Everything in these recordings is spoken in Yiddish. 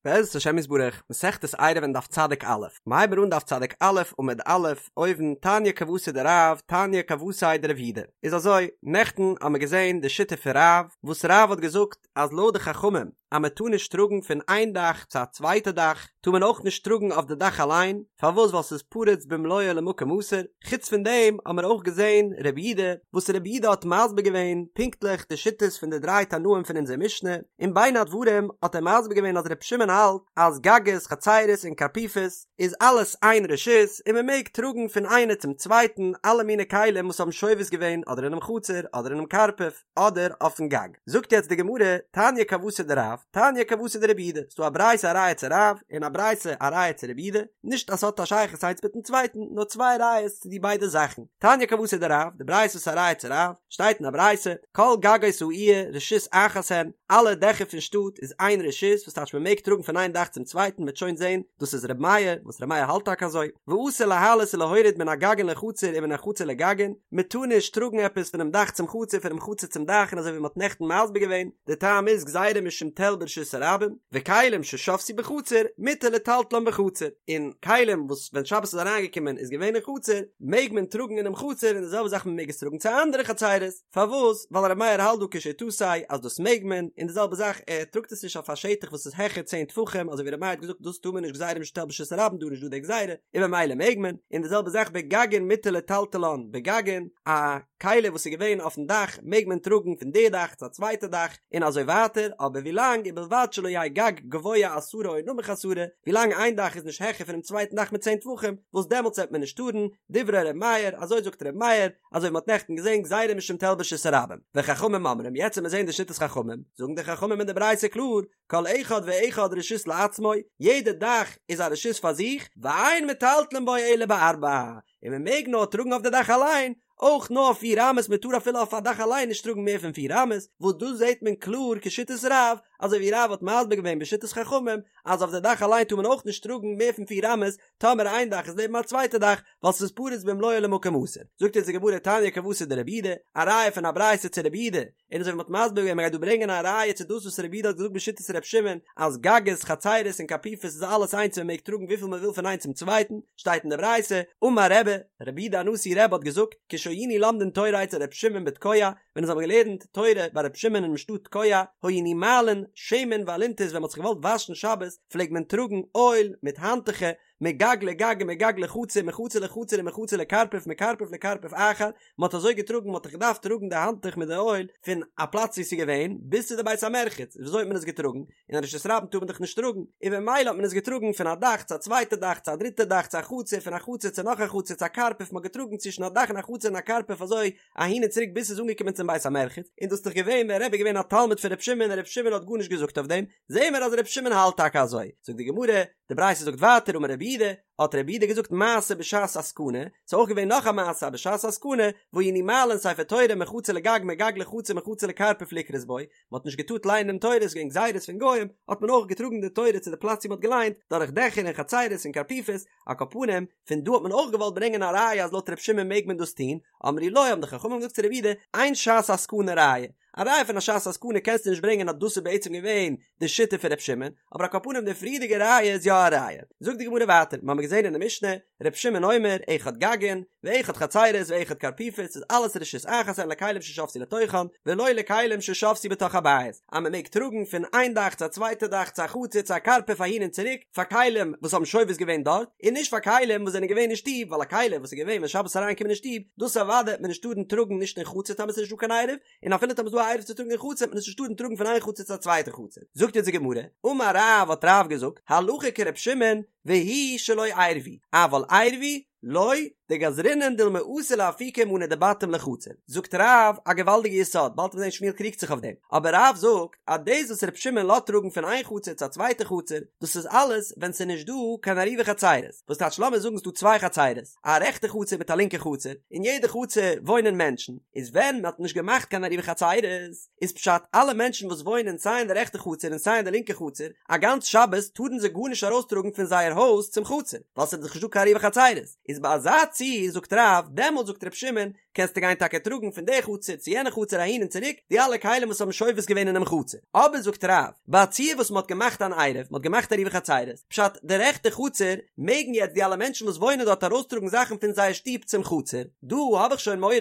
בעזרת השם יתברך, מסכת עירובין דף צדיק א', מ'הייבן אן דף צדיק א' עמוד א', אויבן, תניא כוותיה דרב, תניא כוותיה דרב יהודה. איז אזוי, נעכטן האמיר געזען די שיטה פון רב, וואס רב האט געזאגט אז לויט די חכמים אז מען טאר נישט טראגן פון איין דאך צו א צווייטע דאך, טאר מען אויך נישט טראגן אויף די דאך אליין, פארוואס ווייל ס'איז פרוץ במלואו למקום אסור, חוץ פון דעם האמיר אויך געזען רב יהודה, וואס רב יהודה האט מסביר געווען פונקטליך די שיטות פון די דריי תנאים פון אונזער משנה, און בין הדברים האט ער מסביר געווען אז ר' שמעון האלט אז גגות, חצירות און קרפיפות איז אלעס איין רשות און מען מעג טראגן פון איינע צום צווייטן אלע מיני כלים וואס האבן שובת געווען אדער אינעם חצר אדער אינעם קרפף אדער אויפן גג. זאגט יעצט די גמרא, תניא כוותיה דרב, תניא כוותיה דרב יהודה, ס'דא א ברייתא א ראיה צו רב און א ברייתא א ראיה צו רב יהודה, נישט אז ס'האט א שייכות איינס מיטן צווייטן נאר צוויי ראיות צו די ביידע זאכן. תניא כוותיה דרב, די ברייתא וואס איז א ראיה צו רב, שטייט אין א ברייתא, כל גגות העיר רשות אחת הן, אלע דעכער פון שטאט איז איין רשות, וואס טייטש מען מעג טראגן פון איין דאך צום צווייטן, מ'וועט שוין זען, דאס איז ר' מאיר, וואס ר' מאיר האלט טאקע אזוי, ואסור להעלות ולהוריד מן הגגין לחצר ומן החצר לגגין, מען טאר נישט טראגן עפעס פונעם דאך צום חצר פונעם חצר צום דאך און אזוי ווי מען האט נעכטן מסביר געווען, די טעם איז גזירה משום תל ברשות הרבים, וכלים ששבתו בחצר מותר לטלטלן בחצר, און כלים וואס ווען שבת איז אריינגעקומען איז געווען אין חצר, מעג מען טראגן אינעם חצר און די זעלבע זאך מען מעג עס טראגן צו אנדערע חצרות, פארוואס? ווייל ר' מאיר האלט דא כשיטתו אז דאס מעג מען, און די זעלבע זאך ער טראגט עס נישט אויף א שטח וואס איז העכער צען טפחים אזוי ווי ר' מאיר האט געזאגט דאס טאר מען נישט גזירה משום תל ברשות הרבים דא איז נישט דא די גזירה און ממילא מעג מען, און די זעלבע זאך בגגין מותר לטלטלן בגגין, א כלי וואס איז געווען אויפן דאך מעג מען טראגן פון די דאך צו א צווייטע דאך און אזוי ווייטער, אבער ווילאנג ובלבד שלא יהא גג גבוה עשרה או נמוך עשרה, ווילאנג איין דאך איז נישט העכער פונעם צווייטן דאך מיט צען טפחים, וואס דעמאלטס וועט מען נישט טארן, דברי ר' מאיר, אזוי זאגט ר' מאיר, אזוי ווי מ'האט נעכטן געזען גזירה משום תל ברשות הרבים, וחכמים אומרים, יעצט וועט מען זען די שיטת חכמים, זאגן די חכמים אין די ברייתא קלאר, כל אחד ואחד רשות לעצמו, יעדע דאך איז א רשות פאר זיך, ואין מטלטלין בו אלא בארבע, און מען מעג נאר טראגן אויף די דאך אליין, אויך נאר פיר אמות, מען טאר אפילו אויף א דאך אליין נישט טראגן מער פון פיר אמות, וואס דא זעט מען קלאר כשיטת רב, אזוי ווי רב האט מסביר געווען בשיטת חכמים, אז אויף די דאך אליין טאר מען אויך נישט טראגן מער פון פיר אמות, טאמער איין דאך איז נעבן א צווייטע דאך, ווייל ס'איז פרוץ במלואו למקום אסור. זאגט אונז די גמרא תניא כוותיה דרב יהודה, א ראיה פון א ברייתא צו רב יהודה, און אזוי ווי מ'האט מסביר געווען מ'גייט דא ברענגען א ראיה צו דאס וואס רב יהודה האט געזאגט בשיטת ר' שמעון אז גגות חצירות און קרפיפות איז אלעס איינס און מ'מעג טראגן וויפיל מ'וויל פון איינס צום צווייטן, שטייט אין די ברייתא, אמר רבי, רבי יהודה הנשיא רבי האט געזאגט, כשהיינו לומדין תורה אצל ר' שמעון בתקוע, ווען אונז האבן געלערנט תורה ביי ר' שמעון אינעם שטאט תקוע, היינו מעלין שמן ואלונטית ווען מ'האט זיך געוואלט וואשן שבת פלעגט מען טראגן אויל מיט האנטוכער, מגג לגג ומגג לחצר מחצר לחצר ומחצר לקרפף מקרפף לקרפף אחר, מען האט אזוי געטראגן מען האט דאך געדארפט טראגן די האנטוך מיט די אויל פון א פלאץ ווי עס איז געווען ביז צו די בית המרחץ, ווי אזוי האט מען עס געטראגן? אין א רשות הרבים טאר מען דאך נישט טראגן, און במילא האט מען עס געטראגן פון א דאך צו א צווייטע דאך צו א דריטע דאך צו א חצר פון א חצר צו נאך א חצר צו א קרפף מען האט געטראגן צווישן א דאך און א חצר און א קרפף אזוי אהין און צוריק ביז ס'איז אנגעקומען צום בית המרחץ, און דאס איז דאך געווען ווען רבי איז געווען א תלמיד פון ר' שמעון און ר' שמעון האט גארנישט געזאגט אויף דעם, זעהן מיר אז ר' שמעון האלט טאקע אזוי, זאגט די גמרא, די ברייתא זאגט ווייטער אמר רב יהודה, האט רב יהודה געזאגט מעשה בשעת הסכנה, ס'איז אויך געווען נאך א מעשה אז בשעת הסכנה, והיינו מעלין ספר תורה מחצר לגג מגג לחצר מחצר לקרפף לקרות בו, מ'האט נישט געטארט לייענען דעם תורה, ס'איז געווען גזירות פון גוים, האט מען אויך געטראגן די תורה צו די פלאץ וואו מ'האט געליינט, דורך דעכער און חצרות און קרפיפות, על כל פנים, פון דא האט מען אויך געוואלט ברענגען א ראיה אז לויט ר' שמעון מעג מען דאס טון, אמרו לו האבן די חכמים געזאגט צו רב יהודה, אין שעת הסכנה ראיה, א ראיה פון א שעת הסכנה קענסטו נישט ברענגען אז דאס איז בעצם געווען די שיטה פון ר' שמעון, אבער על כל פנים די פריערדיגע ראיה איז יא א ראיה. זאגט די גמרא ווייטער, מ'האמיר געזען אין די משנה, ר' שמעון אומר, אחד גגין, ואחד חצרות ואחד קרפיפות, איז אלעס רשות אחת הן לכלים ששבתו לתוכן, ולא לכלים ששבתו בתוך הבית, אז מ'מעג טראגן פון איין דאך צו א צווייטע דאך צו א חצר צו א קרפף אהין און צוריק, פאר כלים וואס האבן שובת געווען דארט, און נישט פאר כלים וואס זענען געווען אין שטוב, ווייל א כלי וואס איז געווען ווען שבת איז אריינגעקומען אין שטוב, דאס אוודאי וועט מען נישט טארן טראגן נישט אין חצר טאמער ס'איז נישט דא קיין עירוב, און אפילו טאמער ס'איז דא א עירוב צו טראגן אין חצר וועט מען עס נישט טארן טראגן פון איין חצר צו א צווייטע חצר. זאגט אונז די גמרא, אמר רב האט רב געזאגט, הלכה כר' שמעון, והוא שלא עירבו, אבל עירבו, לא, דגזרינן דילמא אתי לאפוקי מאני דבתים לחצר. זאגט רב א געוואלדיגע יסוד, באלד וועט מען זען שמואל קריגט זיך אויף דעם, אבער רב זאגט אז דאס וואס ר' שמעון לאזט טראגן פון איין חצר צו א צווייטע חצר, דאס איז אלעס ווען ס'איז נישט דא קיין עירובי חצרות, וואס טייטש לאמיר זאגן ס'דא צוויי חצרות, א רעכטע חצר מיט א לינקע חצר, אין יעדע חצר וואוינען מענטשן, איז ווען מען האט נישט געמאכט קיין עירובי חצרות, איז פשט אלע מענטשן וואס וואוינען סיי אין די רעכטע חצר און סיי אין די לינקע חצר, א גאנץ שבת טארן זיי גארנישט ארויסטראגן פון זייער הויז צום חצר, ווייל ס'איז דאך נישט דא קיין עירובי חצרות, איז ביי אזא ציור. ציור זאגט רב, דעמאלט זאגט ר' שמעון, קענסטו גיין טאקע טראגן פון די חצר צו יענע חצר אהין און צוריק, די אלע כלים וואס האבן שובת געווען אינעם חצר. אבער זאגט רב, ביי א ציור וואס מ'האט געמאכט אן עירוב, מ'האט געמאכט עירובי חצירות, פשט, די רעכטע חצר, מעגן יעצט די אלע מענטשן וואס וואוינען דארט ארויסטראגן זאכן פון זייער שטוב צום חצר, דא האב איך שוין מורא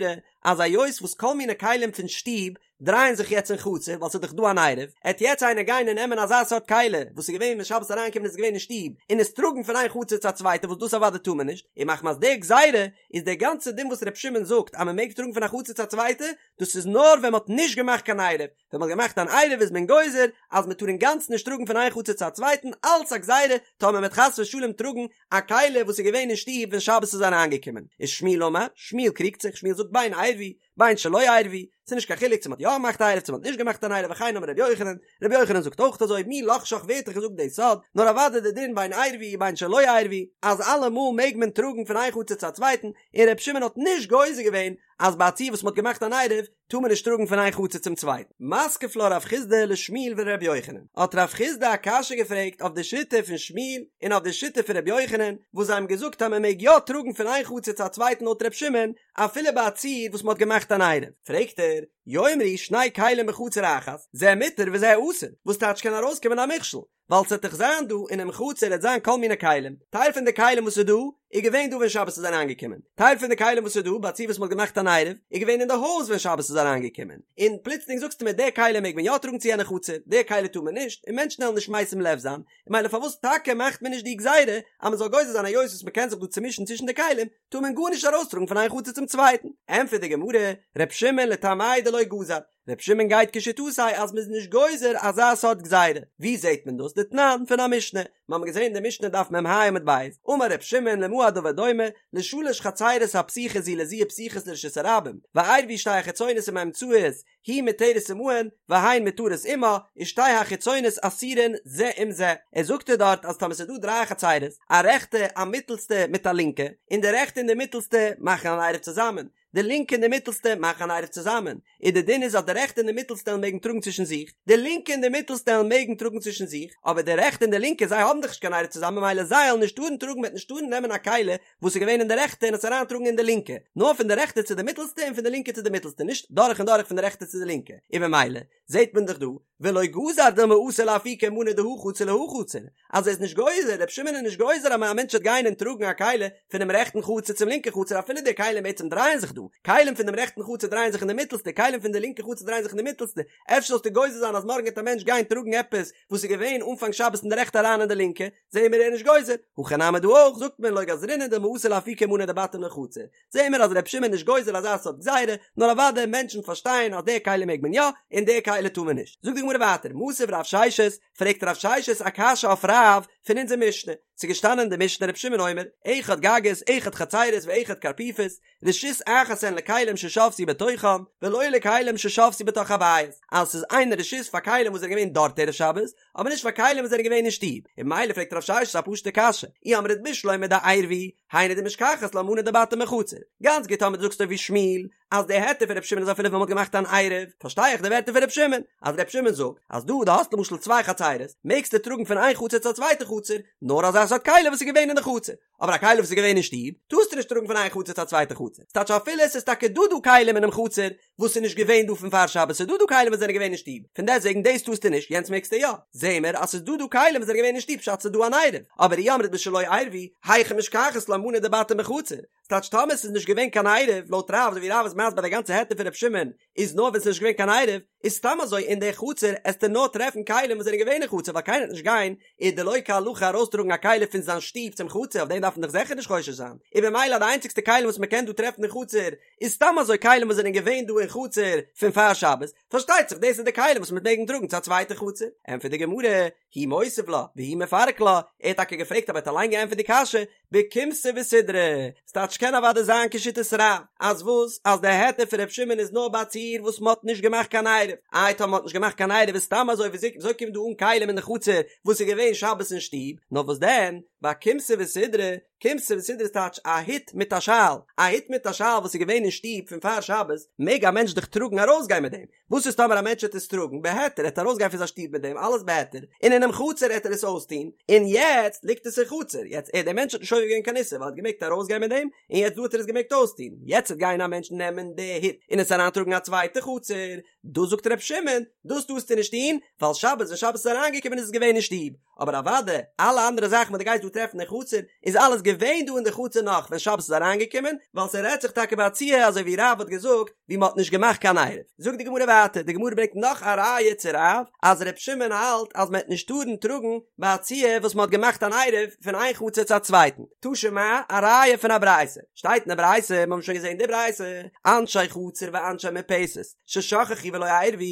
אז היות וואס כל מיני כלים פון שטוב דרייען זיך יעצט אין חצר ווייל ס'איז דאך דא אן עירוב, עט יעצט איינער גיין און נעמען אזא סארט כלי וואס איז געווען ווען שבת איז אריינגעקומען איז געווען אין שטוב און עס טראגן פון איין חצר צו א צווייטע וואס דאס אוודאי טאר מען נישט, און מחמת די גזירה איז דער גאנצער דין וואס ר' שמעון זאגט אז מען מעג טראגן פון א חצר צו א צווייטע דאס איז נאר ווען מען האט נישט געמאכט קיין עירוב, ווען מען האט געמאכט אן עירוב איז מען גוזר אז מען טאר אינגאנצן נישט טראגן פון איין חצר צו א צווייטן אלץ א גזירה טאמער מען וועט חס ושלום טראגן א כלי וואס איז געווען אין שטוב ווען שבת איז אריינגעקומען. איז שמואל אמר, שמואל קריגט זיך, שמואל זאגט בין עירבו בין שלא עירבו, ס'איז נישט קיין חילוק צו מ'האט יא געמאכט א עירוב צו מ'האט נישט געמאכט אן עירוב וכן אמר רבי יוחנן, רבי יוחנן זאגט אויך אזוי, מי לחשך ווער האט דיך געזאגט די סוד, נאר אוודאי די דין בין עירבו בין שלא עירבו, אז אלעמאל מעג מען טראגן פון איין חצר צו א צווייטן, און רבי שמעון האט נישט גוזר געווען אז ביי א ציור וואס מ'האט געמאכט אן עירוב טאר מען נישט טראגן פון איין חצר צום צווייטן. מתקיף לה רב חסדא לשמואל ולרבי יוחנן, האט רב חסדא א קשיא געפרעגט אויף די שיטה פון שמואל און אויף די שיטה פון רבי יוחנן, וואס זיי האבן געזאגט אז מען מעג יא טראגן פון איין חצר צו א צווייטן לויט רבי שמעון, אפילו ביי א ציור וואס מען האט געמאכט אן עירוב. פרעגט ער, יאמרו שני כלים בחצר אחת, זה מותר וזה אסור, וואס טייטש קען ארויסקומען א מכשול, ווייל ס'עט דאך זיין דא אינעם חצר עט זיין כל מיני כלים, טייל פון די כלים וואס איז דא איז געווען דא ווען שבת איז אריינגעקומען, טייל פון די כלים וואס איז דא ביי א ציור וואס מ'האט געמאכט אן עירוב איז געווען אין די הויז ווען שבת איז אריינגעקומען, און פלוצלינג זאגסטו מיר די כלים מעג מען יא טראגן צו יענע חצר, די כלי טאר מען נישט, און מענטשן וועלן נישט משים לב זיין, ממילא פארוואס טאקע מאכט מען נישט די גזירה אז מ'זאל גוזר זיין היות וואס מ'קען זיך דא צומישן צווישן די כלים, טאר מען גארנישט ארויסטראגן פון איין חצר צום צווייטן? ענטפערט די גמרא, ר' שמעון לטעמיה דלא גזר, ר' שמעון גייט כשיטתו אז מ'איז נישט גוזר אזא סארט גזירה, ווי זעט מען דאס? דתנן פון א משנה, מיר האבן געזען אין די משנה דף מ"ה עמוד ב', אמר ר' שמעון למה הדבר דומה, לשלש חצירות הפתוחות זו לזו ופתוחות לרשות הרבים, ועירבו שתי החיצונות עם האמצעית, היא מותרת עמהן והן מותרות עמה, ושתי החיצונות אסורין זה עם זה. ער זאגט ער דארט אז טאמער ס'איז דא דריי חצירות, א רעכטע, א מיטעלסטע מיט א לינקע, און די רעכטע און די מיטעלסטע מאכן אן עירוב צוזאמען, די לינקע און די מיטעלסטע מאכן אן עירוב צוזאמען, און די דין איז אז די רעכטע און די מיטעלסטע וועלן מעגן טראגן צווישן זיך, די לינקע און די מיטעלסטע וועלן מעגן טראגן צווישן זיך, אבער די רעכטע און די לינקע זיי האבן דאך נישט קיין עירוב צוזאמען ממילא זיי וועלן נישט טארן טראגן מ'וועט נישט טארן נעמען א כלי וואס איז געווען אין די רעכטע און עס אריינטראגן אין די לינקע, נאר פון די רעכטע צו די מיטלסטע און פון די לינקע צו די מיטלסטע, נישט דורך און דורך פון די רעכטע צו די לינקע, און ממילא זעט מען דאך דא, ולא גזר דילמא אתי לאפוקי מאני דהא חצר להא חצר, אז ער איז נישט גוזר, רבי שמעון איז נישט גוזר אז א מענטש וועט גיין און טראגן א כלי פונעם רעכטן חצר צום לינקן חצר אפילו די כלים בעצם דרייען זיך דא, כלים פון דעם רעכטן חצר דרייען זיך אין די מיטלסטע, כלים פון די לינקע חצר דרייען זיך אין די מיטלסטע, אפשר זאלסטו גוזר זיין אז מארגן וועט א מענטש גיין טראגן עפעס וואס איז געווען אנפאנג שבת אין די רעכטע אריין אין די לינקע, זעהן מיר ער איז נישט גוזר, הכא נמי דא אויך זאגט מען לא גזרינן דילמא אתי לאפוקי מאני דבתים לחצר, זעהן מיר אז ר' שמעון איז נישט גוזר אזא סארט גזירה, נאר אוודאי מענטשן פארשטייען אז די כלי מעג מען יא און די כלי טאר מען נישט. זאגט די גמרא ווייטער, מתיב רב ששת, פרעגט רב ששת א קשיא אויף רב פון אונזער משנה, ס'איז געשטאנען אין די משנה ר' שמעון אומר, אחד גגות, אחד חצירות ואחד קרפיפות, רשות אחת הן לכלים ששבתו בתוכם, ולא לכלים ששבתו בתוך הבית, אז ס'איז איין רשות פאר כלים וואס זענען געווען דארט ערב שבת, אבער נישט פאר כלים וואס זענען געווען אין שטוב, און ממילא פרעגט רב ששת א פשוטע קשיא, אי אמרת בשלמא דעירבו, היינו דמשכחת לה מאני דבתים בחצר, גאנץ גוט טאמער דו זאגסט אזוי ווי שמואל, אז די היתר פון רבי שמעון איז אפילו ווען מ'האט געמאכט אן עירוב, פארשטיי איך די ווערטער פון רבי שמעון, אז רבי שמעון זאגט אז דא דו האסט למשל צוויי חצרות, מעגסטו טראגן פון איין חצר צו א צווייטע חצר, נאר אזא סארט כלי וואס איז געווען אין די חצר, אבער א כלי וואס איז געווען אין שטוב, טארסטו נישט טראגן פון איין חצר צו א צווייטע חצר, ס'טייטש אפילו עס איז טאקע דא דא כלים אינעם חצר, וואס איז נישט געווען דא פון פאר שבת, ס'איז דא דא כלים וואס זענען געווען אין שטוב, פון דעסטוועגן דאס טארסטו נישט, יענץ מעגסטו יא. זעהן מיר אז ס'איז דא דא כלים וואס זענען געווען אין שטוב פשט ס'איז דא אן עירוב, אבער אי אמרת בשלא עירבו, היכי משכחת לה מאני דבתים בחצר, ס'טייטש טאמער ס'איז נישט געווען קיין עירוב, לויט רב אזוי ווי רב איז מסביר די גאנצע היתר פון ר' שמעון איז נאר ווען ס'איז נישט געווען קיין עירוב, איז סתם אזוי אין די חצר עסטו נאר טרעפן כלים וואס זענען געווען אין חצר ווייל קיינער וועט נישט גיין איז דלא כהלכה ארויסטראגן א כלי פון זיין שטוב צום חצר אויף דעם דארף מען דאך זיכער נישט חושש זיין, און במילא די איינציגסטע כלים וואס מ'קען דא טרעפן אין חצר איז סתם אזוי כלים וואס זענען געווען דא אין חצר פון פאר שבת, פארשטייט זיך דאס איז די כלים וואס מ'וועט מעגן טראגן צו א צווייטע חצר. ענטפערט די גמרא, הוא מותיב לה, והוא מפרק לה, ער האט טאקע געפרעגט אבער ער האט אליין געענטפערט די קשיא, בכומתא וסודרא, ס'טייטש קען אוודאי זיין כשיטת רב, אז וואס? אז די היתר פון ר' שמעון איז נאר ביי א ציור וואס מ'האט נישט געמאכט קיין עירוב, איי טאמער מ'האט נישט געמאכט קיין עירוב איז סתם אזוי וויאזוי קומט דא אן כלים אין די חצר וואס איז געווען שבת אין שטוב, נאר וואס דען, בכומתא וסודרא, כומתא וסודרא איז טייטש א הוט מיט א שאל, א הוט מיט א שאל וואס איז געווען אין שטוב פון פאר שבת, מעג א מענטש דאך טראגן ארויסגיין מיט דעם, וואס איז טאמער א מענטש וועט עס טראגן בהיתר, ער וועט ארויסגיין פון זיין שטוב מיט דעם, אלעס בהיתר, און אינעם חצר וועט ער עס אויסטון, און יעצט ליגט עס אין חצר, יעצט ער דער מענטש האט נישט עובר געווען קיין איסור ווייל ער האט געמעגט ארויסגיין מיט דעם און יעצט דא האט ער עס געמעגט אויסטון, יעצט וועט גיין א מענטש נעמען די הוט און עס אריינטראגן א צווייטע חצר, דאס זאגט ר' שמעון, דאס טארסטו נישט טון, ווייל שבת ווען שבת איז אריינגעקומען איז עס געווען אין שטוב, אבער אוודאי אלע אנדערע זאכן וואס דו גייסט דא טרעפן אין חצר, איז אלעס געווען דא אין די חצר נאך ווען שבת איז אריינגעקומען, ווייל ס'רעדט זיך טאקע ביי א ציור אזוי ווי רב האט געזאגט, ווי מ'האט נישט געמאכט קיין עירוב. זאגט די גמרא ווייטער, די גמרא ברענגט נאך א ראיה צו רב, אז ר' שמעון האלט אז מ'העט נישט טארן טראגן ביי א ציור וואס מ'האט געמאכט אן עירוב פון איין חצר צו א צווייטן. תא שמע, א ראיה פון א ברייתא. שטייט אין די ברייתא, מ'האבן שוין געזען די ברייתא, אנשי חצר ואנשי מרפסת, ששכחו ולא עירבו,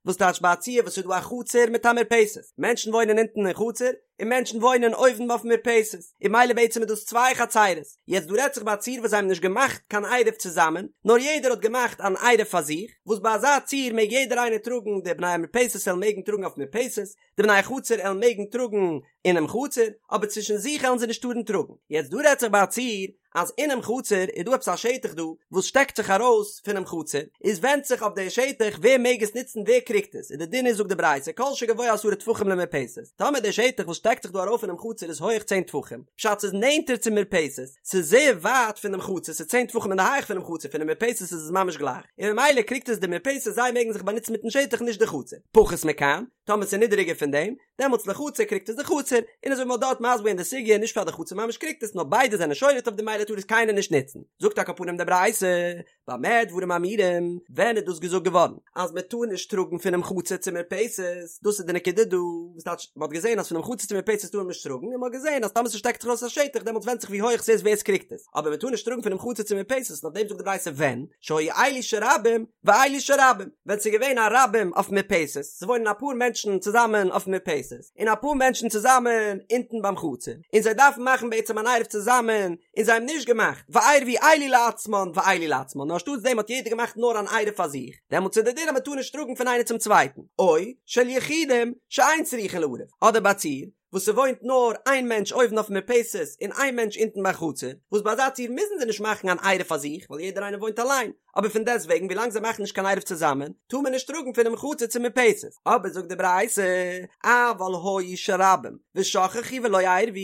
וואס טייטש ביי א ציור וואס איז דא א חצר מיט א מרפסת, מענטשן וואוינען אונטן אין חצר, און מענטשן וואוינען אויבן אויפן מרפסת, און ממילא בעצם איז דאס צוויי חצרות, יעצט דא רעדט זיך ביי א ציור וואס זיי האבן נישט געמאכט קיין עירוב צוזאמען, נאר יעדער האט געמאכט אן עירוב פאר זיך, וואס ביי אזא ציור מעג יעדער איינער טראגן, די בני המרפסת עלן מעגן טראגן אויפן מרפסת, די בני החצר עלן מעגן טראגן אינעם חצר, אבער צווישן זיך עלן זיי נישט טארן טראגן. יעצט דא רעדט זיך ביי א ציור אז אינעם חצר איז דא עפעס א שטח דא וואס שטעקט זיך ארויס פונעם חצר, איז ווענדט זיך אויף די שטח ווער מעג עס נוצן ווער קריגט עס, און די דין איז זאגט די ברייתא כל שגבוה עשרה טפחים למרפסת, טאמער די שטח וואס שטעקט זיך דא ארויף פונעם חצר איז הויעך צען טפחים, פשט ס'איז נענטער צום מרפסת, ס'איז זייער ווייט פונעם חצר, ס'איז צען טפחים אין די הייך פונעם חצר, פונעם מרפסת איז עס ממש גלייך, און ממילא קריגט עס די מרפסת זיי מעגן זיך באנוצן מיטן שטח נישט די חצר, פחות מכאן, טאמער ס'איז נידעריגער פון דעם, דעמאלטס לחצר קריגט עס די חצר, און אזוי ווי מ'האט דארט מסביר געווען די סוגיא נישט פאר די חצר ממש קריגט עס נאר ביידע זענען שולט אויף דעם ממילא טאר עס קיינער נישט נוצן, זאגט על כל פנים די ברייתא, במה דברים אמורים, ווען איז דאס געזאגט געווארן אז מען טאר נישט טראגן פונעם חצר צום מרפסת, דאס איז די נקודה דא, וואס טייטש מען האט געזען אז פונעם חצר צום מרפסת טאר מען נישט טראגן, און מען האט געזען אז טאמער ס'שטעקט זיך ארויס א שטח דעמאלטס ווענדט זיך ווי הויעך ס'איז ווער ס'קריגט עס, אבער מען טאר נישט טראגן פונעם חצר צום מרפסת, און אויף דעם זאגט די ברייתא ווען, שהיו אלו של רבים ואלו של רבים, ווען ס'איז געווען א רבים אויפן מרפסת, ס'וואוינען אפאר מענטשן צוזאמען אויפן מרפסת, און אפאר מענטשן צוזאמען אונטן ביים חצר, און זיי דארפן מאכן בעצם אן עירוב צוזאמען, און זיי האבן נישט געמאכט, ועירבו אלו לעצמן ואלו לעצמן, נאר אנשטאטס דעם האט יעדער געמאכט נאר אן עירוב פאר זיך, דעמאלטס איז דער דין אז מ'טאר נישט טראגן פון איינער צום צווייטן, או של יחידים שאין צריכין לערב, אדער ביי א ציור, וואס ס'וואוינט נאר איין מענטש אויבן אויפן מרפסת און איין מענטש אונטן ביים חצר, וואס ביי אזא ציור מוזן זיי נישט מאכן אן עירוב פאר זיך ווייל יעדער איינער וואוינט אליין, אבער פון דעסט וועגן ווילאנג זיי מאכן נישט קיין עירוב צוזאמען טאר מען נישט טראגן פונעם חצר צום מרפסת, אבער זאגט די ברייתא, אבל היו של רבים ושכחו ולא עירבו,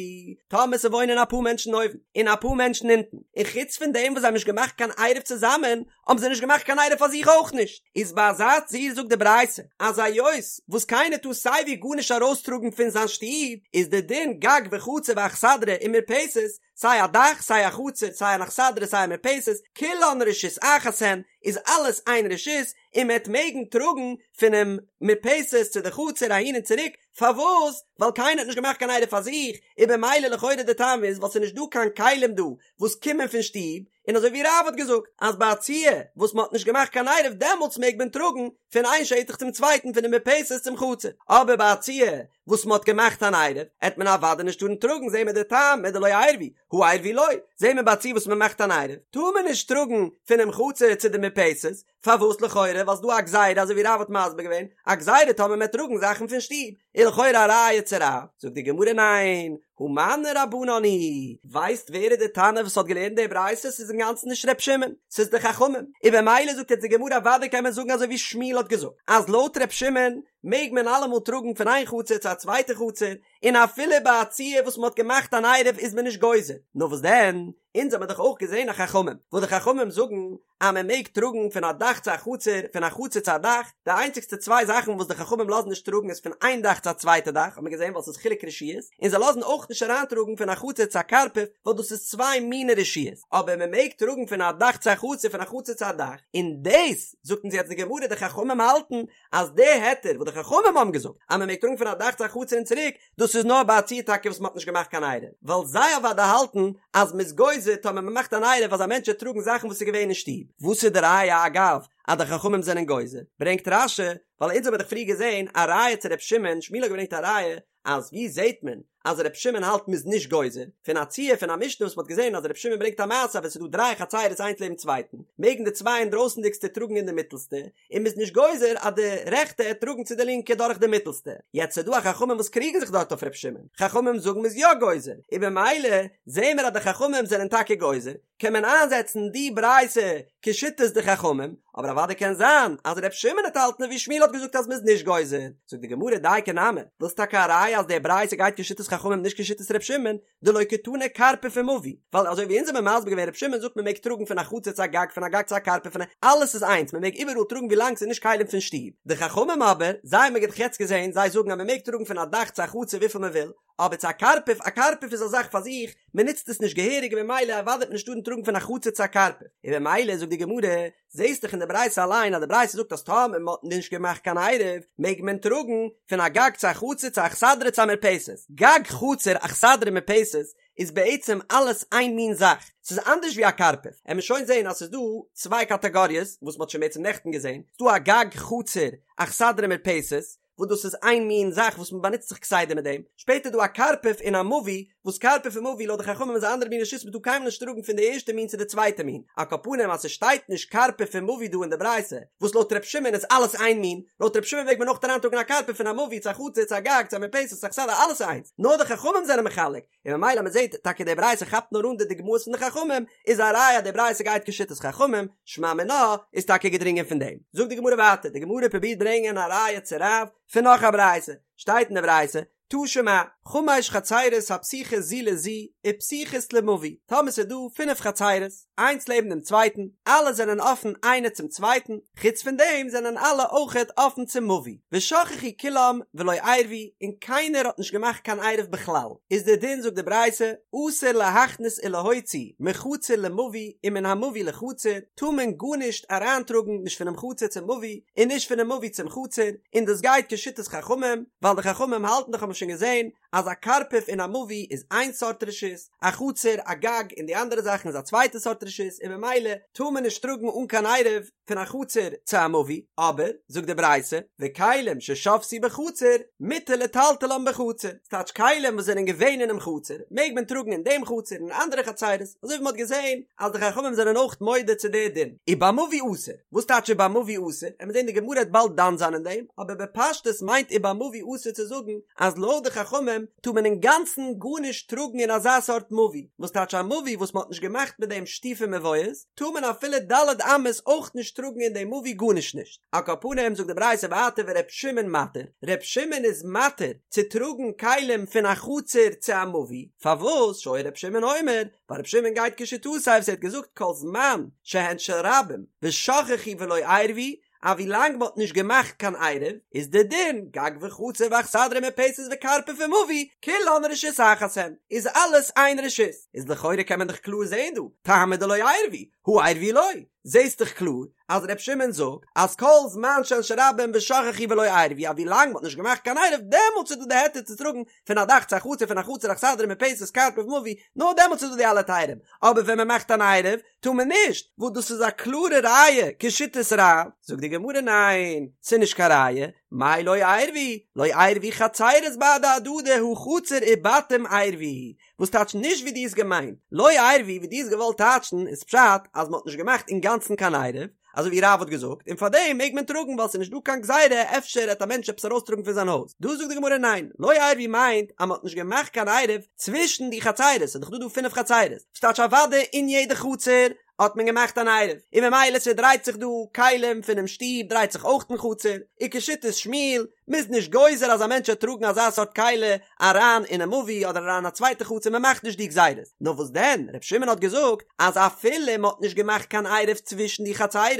טאמער ס'וואוינען אפאר מענטשן אויבן און אפאר מענטשן אונטן, און חוץ פון דעם וואס זיי האבן נישט געמאכט קיין עירוב צוזאמען, האבן זיי נישט געמאכט קיין עירוב פאר זיך אויך נישט, איז ביי אזא ציור זאגט די ברייתא אז היות וואס קיינער טאר סייווי גארנישט ארויסטראגן פון זיין שטוב, איז די דין גג וחצר ואכסדרה ומרפסת, סיי א דאך סיי א חצר סיי אן אכסדרה סיי א מרפסת, כולן רשות אחת הן, איז אלעס איין רשות, און מען וועט מעגן טראגן פונעם מרפסת צו די חצר אהין און צוריק, פארוואס? ווייל קיינער האט נישט געמאכט קיין עירוב פאר זיך, און במילא לכאורה די טעם איז ווייל ס'איז נישט דא קיין כלים דא וואס קומען פון שטוב, און אזוי ווי רב האט געזאגט אז ביי א ציור וואס מען האט נישט געמאכט קיין עירוב דעמאלטס מעג מען טראגן פון איין שטח צום צווייטן פונעם מרפסת צום חצר, אבער ביי א ציור וואס מען האט געמאכט אן עירוב עט מען אוודאי נישט טארן טראגן זעהן מיר די טעם מדלא עירבו הא עירבו לא, זעהן מיר ביי א ציור וואס מען מאכט אן עירוב טאר מען נישט טראגן פונעם חצר צו די מרפסת, פארוואס לכאורה ווייל ס'דא א גזירה אזוי ווי רב האט מסביר געווען א גזירה טאמער מ'עט טראגן זאכן פון שטוב איז לכאורה א ראיה צו רב, זאגט די גמרא ניין, הא מני רבנן היא, ווייסט ווער איז די תנא וואס האט געלערנט די ברייתא ס'איז אינגאנצן נישט ר' שמעון ס'איז די חכמים, און במילא זאגט יעצט די גמרא אוודאי קען מען זאגן אזוי ווי שמואל האט געזאגט אז לויט ר' שמעון מעג מען אלעמאל טראגן פון איין חצר צו א צווייטע חצר און אפילו ביי א ציור וואס מ'האט געמאכט אן עירוב איז מען נישט גוזר, נאר וואס דען אונז האמיר דאך אויך געזען א חכמים וואס די חכמים זאגן אז מען מעג טראגן פון א דאך צו א חצר, פון א חצר צו א דאך, די איינציגסטע צוויי זאכן וואס די חכמים לאזן נישט טראגן איז פון איין דאך צו א צווייטע דאך, האט מען געזען ווייל ס'איז חילוק רשויות, און זיי לאזן אויך נישט אריינטראגן פון א חצר צו א קרפף ווייל דאס איז צוויי מיני רשויות, אבער מען מעג טראגן פון א דאך צו א חצר פון א חצר צו א דאך, און דאס זאגט אונז יעצט די גמרא די חכמים האלטן אז די היתר וואס די חכמים האבן געזאגט אז מען מעג טראגן פון א דאך צו א חצר און צוריק, דאס איז נאר ביי א ציור טאקע וואס מען האט נישט געמאכט קיין עירוב, ווייל זיי אוודאי האלטן אז מען איז גוזר טאמער מען מאכט אן עירוב אז א מענטש וועט טראגן זאכן וואס איז געווען אין שטוב. וואס איז די ראיה אגב אז די חכמים זענען גוזר? ברענגט רש"י, ווייל אונז האבן דאך פריער געזען א ראיה צו ר' שמעון, שמואל האט געברענגט א ראיה אז ווי זעט מען אז ר' שמעון האלט מען איז נישט גוזר, פון א ציור פון א משנה וואס מען האט געזען אז ר' שמעון ברענגט א מעשה אז ווען ס'איז דא דריי חצירות איינס לעבן צווייטן מעגן די צוויי אינדרויסנדיגסטע טראגן אין די מיטלסטע, און מ'איז נישט גוזר אז די רעכטע עט טראגן צו די לינקע דורך די מיטלסטע, יעצט ס'דא א חכמים וואס קריגן זיך דארט אויף ר' שמעון, חכמים זאגן מ'איז יא גוזר, און במילא זעהן מיר אז די חכמים זענען טאקע גוזר, קען מען איינזעצן די ברייתא כשיטת די חכמים, אבער אוודאי קען זיין אז ר' שמעון עט האלטן ווי שמואל האט. האט געזאגט אז מ'איז נישט גוזר. זאגט די גמרא דייקא נמי, ווילסט טאקע א ראיה אז די ברייתא גייט כשיטת חכמים נישט כשיטת ר' שמעון, דלא קתני קרפף ומבוי, ווייל אזוי ווי אונז האבן מסביר געווען ר' שמעון זאגט מען מעג טראגן פון א חצר צו א גג פון א גג צו א קרפף פון א אלעס איז איינס מען מעג איבעראל טראגן ווילאנג ס'איז נישט כלים פון שטוב, די חכמים אבער זיי האבן מיר דאך יעצט געזען זיי זאגן אז מען מעג טראגן פון א דאך צו א חצר וויפיל מען וויל, אבער צו א קרפף, א קרפף איז א זאך פאר זיך, מען נוצט עס נישט געהעריג און ממילא אוודאי וועט מען נישט טארן טראגן פון א חצר צו א קרפף, און ממילא זאגט די גמרא, זעהסט דאך אין די ברייתא אליין אז די ברייתא זאגט אז טאמער מען האט נישט געמאכט קיין עירוב מעג מען טראגן פון א גג צו א חצר צו א אכסדרה צו א מרפסת, גג חצר אכסדרה מרפסת איז בעצם אלעס איין מין זאך, ס'איז אנדערש ווי א קרפף, עמיר שוין זעהן אז ס'איז דא צוויי קאטאגאריעס וואס מ'האט שוין בעצם נעכטן געזעהן, ס'איז דא א גג חצר אכסדרה מרפסת, וואס דאס איז איין מין זאך וואס מען באנוצט זיך כסדר מיט דעם, שפעטער דא א קרפף און א מבוי, וואס קרפף און מבוי לויט די חכמים איז א אנדערע מין רשות מען טאר קיינמאל נישט טראגן פון די ערשטע מין צו די צווייטע מין, על כל פנים אז ס'שטייט נישט קרפף און מבוי דא אין די ברייתא, וואס לויט ר' שמעון איז אלעס איין מין, לויט ר' שמעון מעג מען אויך אריינטראגן א קרפף פון א מבוי צו א חצר צו א גג צו א מרפסת צו אכסדרה אלעס איז איינס, נאר די חכמים זענען מחלק, און ממילא מען זעט טאקע די ברייתא כאפט נאר אן די דוגמאות פון די חכמים, איז א ראיה אז די ברייתא גייט כשיטת חכמים, שמע מינה איז טאקע געדרינגען פון דעם. זאגט די גמרא ווייטער, די גמרא פרובירט ברענגען א ראיה צו רב פון נאך א ברייתא, שטייט אין די ברייתא, תא שמע, חמש חצירות הפתוחות זו לזו ופתוחות למבוי, טאמער ס'איז דא פינף חצירות, איינס לעבן דעם צווייטן, אלע זענען אפן איינע צום צווייטן, חוץ פון דעם זענען אלע אויכעט אפן צום מבוי, ושכחו כולם ולא עירבו, און קיינער האט נישט געמאכט קיין עירוב בכלל, איז דער דין זאגט די ברייתא, אסור להכניס ולהוציא מחצר למבוי ומן המבוי לחצר, טאר מען גארנישט אריינטראגן נישט פונעם חצר צום מבוי און נישט פונעם מבוי צום חצר, און דאס גייט כשיטת חכמים, ווייל די חכמים האלטן דאך האבן מיר שוין געזען אז א קרפף און א מבוי איז איין סארט רשות, א חצר, א גג און די אנדערע זאכן איז א צווייטע סארט רשות און ממילא טאר מען נישט טראגן אן קיין עירוב פון א חצר צו א מבוי, אבער, זאגט די ברייתא, וכלים ששבתו בחצר מותר לטלטלן בחצר, ס'טייטש כלים וואס זענען געווען אינעם חצר מעג מען טראגן אין דעם חצר און אין אנדערע חצרות, אזוי ווי מ'האט געזען אז די חכמים זענען אויך מודה צו די דין. ובמבוי אסור, וואס טייטש ובמבוי אסור? עמיר זען די גמרא וועט באלד דן זיין אין דעם, אבער בפשטות מיינט ובמבוי אסור צו זאגן אז לויט די חכמים טאר מען אינגאנצן גארנישט טראגן אין אזא סארט מבוי, וואס טייטש א מבוי וואס מען האט נישט געמאכט מיט דעם שיתופי מבואות, טאר מען אפילו ד' אמות אויך נישט טראגן אין דעם מבוי גארנישט נישט. על כל פנים זאגט די ברייתא ווייטער ור' שמעון מתיר, ר' שמעון איז מתיר צו טראגן כלים פון א חצר צו א מבוי, פארוואס שהיה ר' שמעון אומר, ווייל ר' שמעון גייט כשיטתו וואס ער האט געזאגט כל זמן שהן של רבים ושכחו ולא עירבו, אז ווי לאנג מ'האט נישט געמאכט קיין עירוב איז די דין גג וחצר ואכסדרה ומרפסת וקרפף ומבוי כולן רשות אחת הן איז אלעס איין רשות איז לכאורה קען מען דאך קלאר זעהן דא טעמא דלא עירבו הא עירבו לא זעהסט דאך קלאר אז ר' שמעון זאגט אז כל זמן שהן של רבים ושכחו ולא עירבו אז ווי לאנג מ'האט נישט געמאכט קיין עירוב דעמאלטס איז דא די היתר צו טראגן פון א דאך צו א חצר פון א חצר אכסדרה מרפסת קרפף מבוי נאר דעמאלטס איז דא די אלע היתרים אבער ווען מ'מאכט אן עירוב טאר מען נישט, וואס דאס איז א קלארע ראיה כשיטת רב, זאגט די גמרא ניין, ס'איז נישט קיין ראיה, מאי לא עירבו, לא עירבו חצירות בהדי הדדי הא חצר ובתים עירבו, וואס טייטש נישט ווי דו האסט געמיינט, לא עירבו ווי דו האסט געוואלט טייטשן איז פשט אז מ'האט נישט געמאכט אינגאנצן קיין עירוב, אזוי ווי רב האט געזאגט, און פארדעם מעג מען טראגן ווייל ס'איז נישט דא קיין גזירה אפשר העט א מענטש עפעס ארויסטראגן פון זיין הויז, דא זאגט די גמרא ניין, לא עירבו מיינט אז מ'האט נישט געמאכט קיין עירוב צווישן די חצירות, ס'איז דאך דא דא פינף חצירות, וואס טייטש אוודאי אין יעדע חצר האט מען געמאכט אן עירוב, און ממילא ס'דרייט זיך דא כלים פונעם שטוב דרייט זיך אויך אין חצר, וכשיטת שמואל, מ'איז נישט גוזר אז א מענטש וועט טראגן אזא סארט כלי אריין אינעם מבוי אדער אריין אין א צווייטע חצר מען מאכט נישט די גזירות, נאר וואס דען ר' שמעון האט געזאגט אז אפילו מען האט נישט געמאכט קיין עירוב צווישן די חצירות,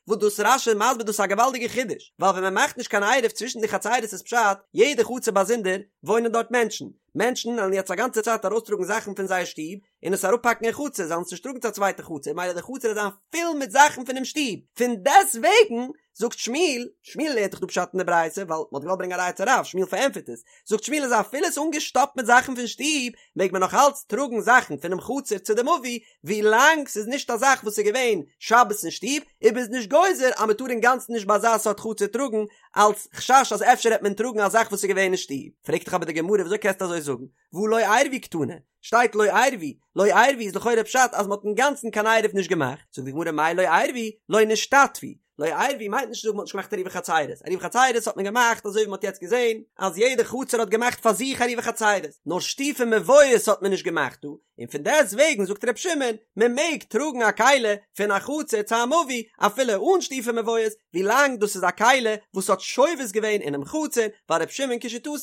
וואס דאס רש"י מסביר דאס איז א געוואלדיגע חידוש, ווייל ווען מען מאכט נישט קיין עירוב צווישן די חצירות איז פשט יעדע חצר באזונדער וואוינען דארט מענטשן, מענטשן וועלן יעצט א גאנצע צייט ארויסטראגן זאכן פון זייער שטוב און עס אראפפאקן אין חצר, זיי וועלן עס נישט טראגן צו א צווייטע חצר, ממילא די חצר וועט זיין פול מיט זאכן פונעם שטוב, פון דעסטוועגן זאגט שמואל, שמואל לערנט דאך דא פשט אין די ברייתא, ווייל מ'האט געוואלט ברענגען א ראיה צו רב, שמואל פארענטפערט עס, זאגט שמואל אז אפילו עס איז אנגעשטאפט מיט זאכן פון שטוב, מעג מען נאך אלץ טראגן זאכן פונעם חצר צו די מבוי, ווי לאנג ס'איז נישט א זאך וואס איז געווען שבת אין שטוב, און מ'איז נישט גוזר אז מ'טאר אינגאנצן נישט ביי אזא סארט חצר טראגן, אלץ חשש אז אפשר העט מען טראגן א זאך וואס איז געווען אין שטוב. פרעגט דאך אבער די גמרא וויאזוי קענסטו אזוי זאגן, והא לא עירבו קתני, שטייט לא עירבו, לא עירבו איז לכאורה פשט אז מ'האט אינגאנצן קיין עירוב נישט געמאכט, זאגט די גמרא מאי לא עירבו, לא נשתתפו, לא עירבו מיינט נישט צו זאגן מ'האט נישט געמאכט עירובי חצירות, עירובי חצירות האט מען געמאכט אזוי ווי מ'האט יעצט געזען אז יעדע חצר האט געמאכט פאר זיך עירובי חצירות, נאר שיתופי מבואות האט מען נישט געמאכט דא, און פון דעסט וועגן זאגט ר' שמעון, מען מעג טראגן א כלי פון א חצר צו א מבוי אפילו אן שיתופי מבואות, ווילאנג דאס איז א כלי וואס האט שובת געווען אינעם חצר, ווייל ר' שמעון כשיטתו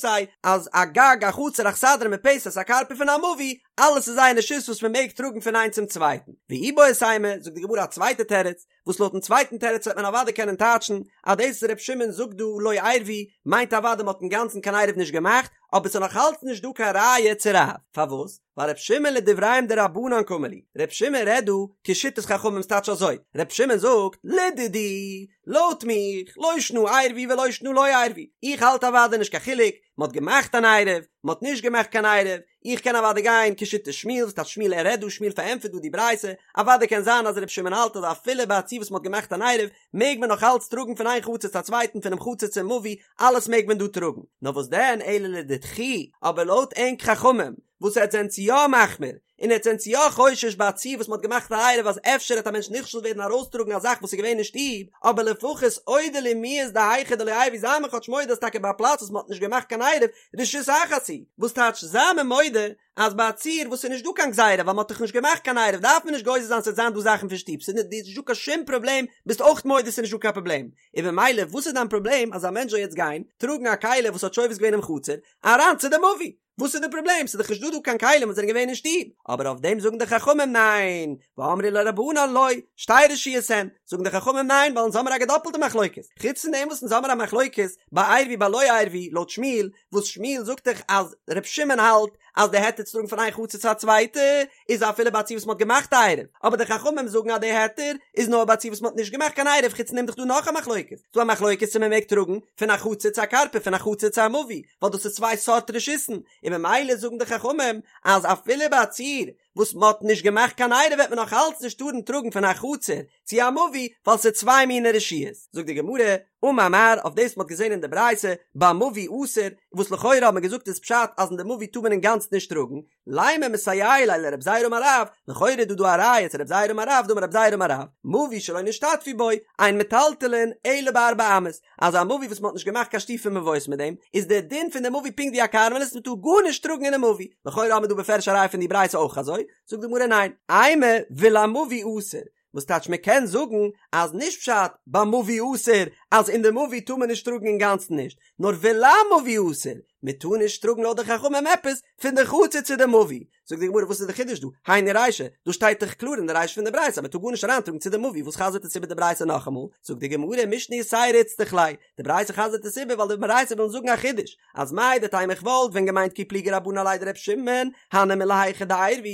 אז א גג א חצר אכסדרה מרפסת א קרפף און א מבוי, אלעס איז איין רשות וואס מען מעג טראגן פון איינס צום צווייטן. ואיבעית אימא, זאגט די גמרא א צווייטע תירוץ, וואס לויטן צווייטן תירוץ וועט מען אוודאי קענען טייטשן אז דאס וואס ר' שמעון זאגט דא לא עירבו מיינט אוודאי מ'האט אינגאנצן קיין עירוב נישט געמאכט, אבער ס'איז נאך אלץ נישט דא קיין ראיה צו רב. פארוואס? ווייל ר' שמעון לדבריהם דרבנן קאמר להו, ר' שמעון רעדט דא כשיטת חכמים ס'טייטש אזוי, ר' שמעון זאגט, לדידי, לויט מיך, לא שנא עירבו ולא שנא לא עירבו, איך האלט אוודאי נישט קיין חילוק, מ'האט געמאכט אן עירוב, מ'האט נישט געמאכט קיין עירוב, איך קען אוודאי גיין כשיטת שמואל, וואס טייטש שמואל ער רעדט דא שמואל פארענטפערט דא די ברייתא, אוודאי קען זיין אז ר' שמעון האלט אז אפילו ביי א ציור וואס מ'האט געמאכט אן עירוב מעג מען נאך אלץ טראגן פון איין חצר צו א צווייטן פונעם חצר צום מבוי, אלעס מעג מען דא טראגן, נאר וואס דען אלא לדידכו, אבער לויט ענק חכמים וואס עטס זענטס יא מחמיר און עטס זענטס יא חושש ביי א ציור וואס מ'האט געמאכט א עירוב אז אפשר העט א מענטש נכשל ווערן ארויסטראגן א זאך וואס איז געווען אין שטוב, אבער לפחות אודו לי מיהת דהיכא דלא עירבו זיי מיר כאטש מודה אז טאקע ביי א פלאץ וואס מ'האט נישט געמאכט קיין עירוב רשות אחת היא, וואס טייטש זיי מיר מודה אז ביי א ציור וואס איז נישט דא קיין גזירה ווייל מ'האט דאך נישט געמאכט קיין עירוב דארף מען נישט גוזר זיין ס'וועט זיין דא זאכן פון שטוב ס'איז נישט דא קיין שום פראבלעם ביסט אויך מודה ס'איז נישט דא קיין פראבלעם און במילא וואס איז דיין פראבלעם אז א מענטש זאל יעצט גיין טראגן א כלי וואס האט שובת געווען אינעם חצר אריין צו די מבוי וואס איז די פראבלעם ס'איז דאך נישט דא דא קיין כלים וואס זענען געווען אין שטוב אבער אויף דעם זאגן די חכמים ניין ואמרי לה רבנן לא שתי רשויות הן זאגן די חכמים ניין ווייל אונז האמיר א געדאפלטע מחלוקת חוץ פון דעם וואס אונז האמיר א מחלוקת ביי עירבו ביי לא עירבו לויט שמואל וואס שמואל זאגט דאך אז ר' שמעון האלט אז די היתר צו טראגן פון איין חצר צו א צווייטע איז אפילו ביי א ציור וואס מ'האט געמאכט א עירוב, אבער די חכמים זאגן אז די היתר איז נאר ביי א ציור וואס מ'האט נישט געמאכט קיין עירוב, חוץ פון דעם דאך דא נאך א מחלוקת, ס'דא א מחלוקת צו מ'מעג טראגן פון א חצר צו א קרפף פון א חצר צו א מבוי, ווייל דאס איז צוויי סארט רשות'ן, און ממילא זאגן די חכמים אז אפילו ביי א ציור וואס מ'האט נישט געמאכט קיין עירוב וועט מען נאך אלץ נישט טארן טראגן פון א חצר צו א מבוי ווייל ס'איז צוויי מיני רשויות. זאגט די גמרא, אמר מר, אויף דאס מ'האט געזען אין די ברייתא, במבוי אסור, וואס לכאורה האט מען געזאגט איז פשט אז אין די מבוי טאר מען אינגאנצן נישט טראגן, לימא מסייע ליה לרב זירא אמר רב, לכאורה איז דא דא א ראיה צו רב זירא אמר רב, דאמר רב זירא אמר רב, מבוי שלא נשתתפו בו, אין מטלטלין אלא בארבע אמות, אז א מבוי וואס מ'האט נישט געמאכט קיין שיתופי מבואות מיט דעם, איז דער דין פון די מבוי פונקט ווי א כרמלית מ'טאר גארנישט טראגן אינעם מבוי, לכאורה האבן מיר דא בפירוש א ראיה פון די ברייתא אויך אזוי, זאגט די גמרא ניין, אימא ולמבוי אסור, וואס טייטש מען קען זאגן אז נישט פשט במבוי אסור אז אין די מבוי טאר מען נישט טראגן אינגאנצן נישט, נאר ולמבוי אסור, מען טאר נישט טראגן לויט די חכמים עפעס פון די חצר צו די מבוי, זאגט די גמרא וואס איז די חידוש דא, היינו רישא, דא שטייט דאך קלאר אין די רישא פון די ברייתא אז מען טאר גארנישט אריינטראגן צו די מבוי, וואס חזר'ט עס איבער די ברייתא נאכאמאל, זאגט די גמרא משנה יתירא איצטריך ליה, די ברייתא חזר'ט עס איבער ווייל די ברייתא וויל זאגן א חידוש, אז מהו דתימא איך וואלט ווען געמיינט כי פליגי רבנן עליה דר' שמעון, הני מילי היכא דעירבו,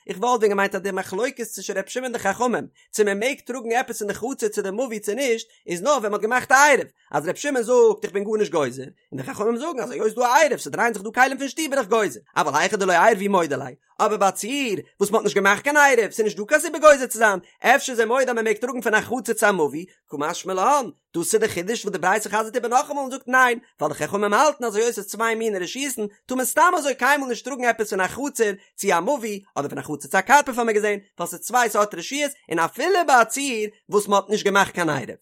איך וואלט ווען געמיינט אז די מחלוקת צווישן ר' שמעון און די חכמים, צו מען מעג טראגן עפעס אין די חצר צו די מבוי צו נישט, איז נאר ווען מען האט געמאכט א עירוב, אז ר' שמעון זאגט איך בין גארנישט גוזר, און די חכמים זאגן אז היות ס'דא א עירוב ס'דרייען זיך דא כלים פון שטוב בין איך גוזר, אבל היכא דלא עירבו מודה ליה, אבער ביי א ציור וואס מ'האט נישט געמאכט קיין עירוב, ס'איז נישט דא קיין סיבה גוזר צו זיין, אפשר איז ער מודה אז מ'מעג טראגן פון א חצר צו א מבוי, קא משמע לן, דאס איז די חידוש וואס די ברייתא חזר'ט איבער נאכאמאל און זאגט ניין, ווייל די חכמים האלטן אז היות ס'איז צוויי מיני רשות'ן, טאר מען סתם אזוי קיינמאל נישט טראגן עפעס פון א חצר צו א מבוי, אדער פון א חצר צו א קרפף האמיר געזען, ווייל ס'איז צוויי סארט רשויות, און אפילו ביי א ציור וואס מ'האט נישט געמאכט קיין עירוב.